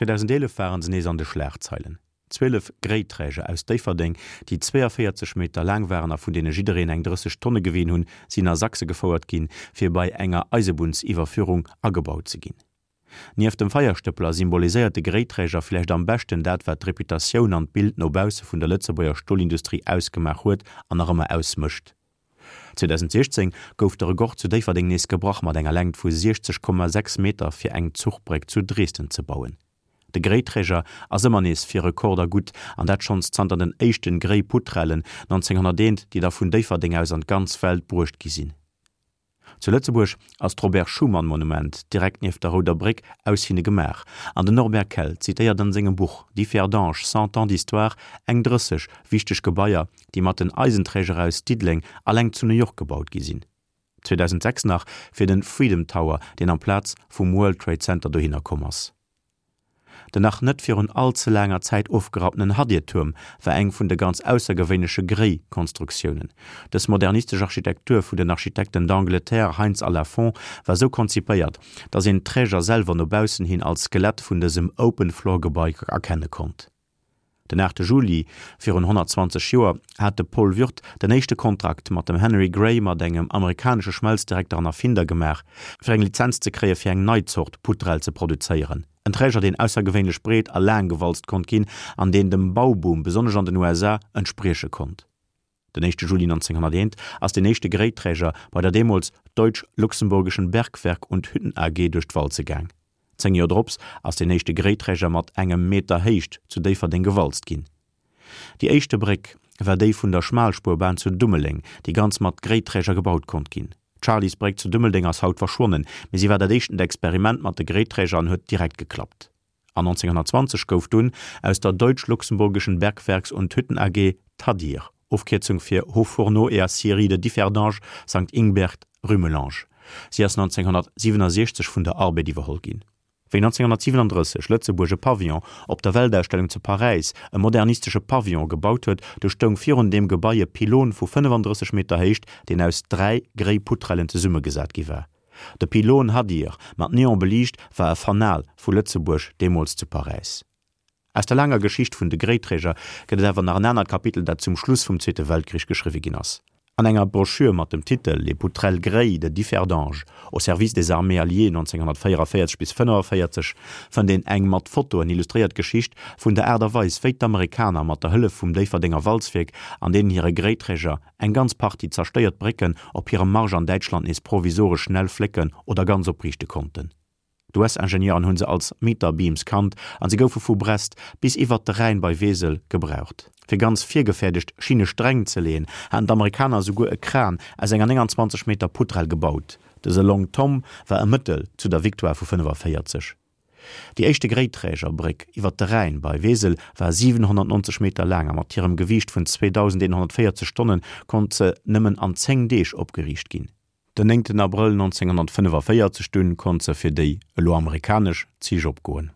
2011 waren se nees an de Schlagzeilen. 12 Gréiträger aus Déifferdeng, déi 42 Meter laang waren a vun deene jiddereen eng 30 Tonne gewien hunn, sinn a Sachse gefouert ginn, fir bei enger Eisebunnsiwwerführung agebaut ze ginn. Nieft dem Feierstëppler symboliséiert de Gréiträger vläicht am beschten dat, wat d'Reputatioun an d'Bild no bausse vun der Lëtzebuerger Stolindustrie ausgemaach huet an nach ëmmer ausmécht. 2016 gouf de Rekord zu Déifferdeng nees gebrach mat enger Längt vu 60,6 Meter fir eng Zuchbréck zu Dresden ze bauen. De Gréiträger ass ëmmer nees fir Rekorder gutt, an dat schonns zanter den éischten Gréiputrellen 1901, déi da vun Déifferdeng aus an d'ganz Welt bruecht gi sinn. Zu Lëtzebuerg ass d'Robert Schuman Monument direkt nieft der Rouder Bréck aus hinne gemaach, an den Norbert Kell zitéiert an sengem Buch Differdange, cent ans d'histoire eng 30 wichteg Gebaier, déi mat den Eisenträger aus Diddeleng alleng zu New York gebaut gi sinn. 2006 nach fir den Freedom Tower, deen amplaz vum World Trade Center dohinner komm ass. Den nach net virun all ze laanger Zäit ofgerapptenen Hadir-Tuerm war eng vun de ganz aussergewéinleche Gréi-Konstruktiounen. Dës modernistesch Architektur vun den Architekten d'Angleterre Heinz a Lafont war sou konzipéiert, datt een d'Träger selwer no baussen hin als Skelett vun dësem Open-Floor-Gebai erkenne konnt. Den 8 Juli virun 120 Joer hat de Paul Würth den éischte Kontrakt mat dem Henry Gray mat engem amerikanesche Schmelzdirekter an Erfinder gemaach, fir eng Lizenz ze kréie fir eng nei Zort Putrell ze produzéieren, en Träger deen aussergewéinlech breet a laang gewalzt konnt ginn an deen dem Bauboom, besonnesch an den USA, entsprieche konnt. Den éischte Juli 1901 ass den éischte Gréiträger bei der deemools Deutsch-Luxemburgischen Bergwerk und Hütten AG duerch d'Walze gaang. Zéng Joer drops ass den éischte Gréiträger mat engem Meter Héicht zu Déifferdeng gewalzt ginn. Déi éischte Bréck war déi vun der Schmalspurbahn zu Dummeleng, déi ganz mat Gréiträger gebaut konnt ginn. D'Charlysbréck zu Dummeldeng ass haut verschwonnen, mee si war dat éischtent Experiment mat de Gréiträger an huet direkt geklappt. An 1920 gouf dunn aus der Deutsch-Luxemburgischen Bergwerks und Hütten AG d'Hadir, Ofkierzung fir Hauts Fourneaux et Aciéries de Differdange, Sankt Ingbert, Rumelange. Si ass 1967 vun der Arbed iwwerholl ginn. Wéi 1937 Lëtzebuerg e Pavillon op der Weltausstellung zu Paräis, e modernistesche Pavillon, gebaut huet, du stoung virun deem Gebai e Pylon vu 35 Meter Héicht, deen aus dräi gréi Putrellen zesummegesat gi war. De Pylône Hadir, mat Neon beliicht, war e Fanal vu Lëtzebuerg deemools zu Paräis. Aus der laanger Geschicht vun de Gréiträger gëtt et awer nach en anert Kapitel, dat zum Schluss vum Zweete Weltkrich geschriwwe ginn ass. An enger Broschür mat dem Titel Les poutrelles grey de Differdange au service des armées alliées 1944 bis 45 fënnt een eng mat Fotoen illustréiert Geschicht vun der Aart a Weis, wéi d'Amerikaner mat der Hëllef vum Déifferdenger Walzwierk an deenen hire Gréiträger eng ganz Partie zerstéiert Brécken op hirem Marsch an Däitschland nees provisoresch schnell flécken oder ganz opriichte konnten. D'US-Ingenieuren hunn se als Meter Beams kannt an se goufe vu Brest bis iwwert de Rhäin bei Wesel gebraucht. Fir ganz virgefäerdegt Schinne-Sträng ze leeën, haten d'Amerikaner esouguer e Kran aus enger 29 Meter Putrell gebaut. Dëse Long Tom war e Mëttel zu der Victoire vu 45. Déi éischte Gréiträgerbréck iwwer de Rhäin bei Wesel war 790 Meter laang a mat hirem Gewiicht vun 2.140 Tonne konnt se nëmmen an 10 Deeg opgeriicht ginn. Den 9 Abrëll 1945 dunn konnt se fir déi, elo amerikanesch, Zich opgoen.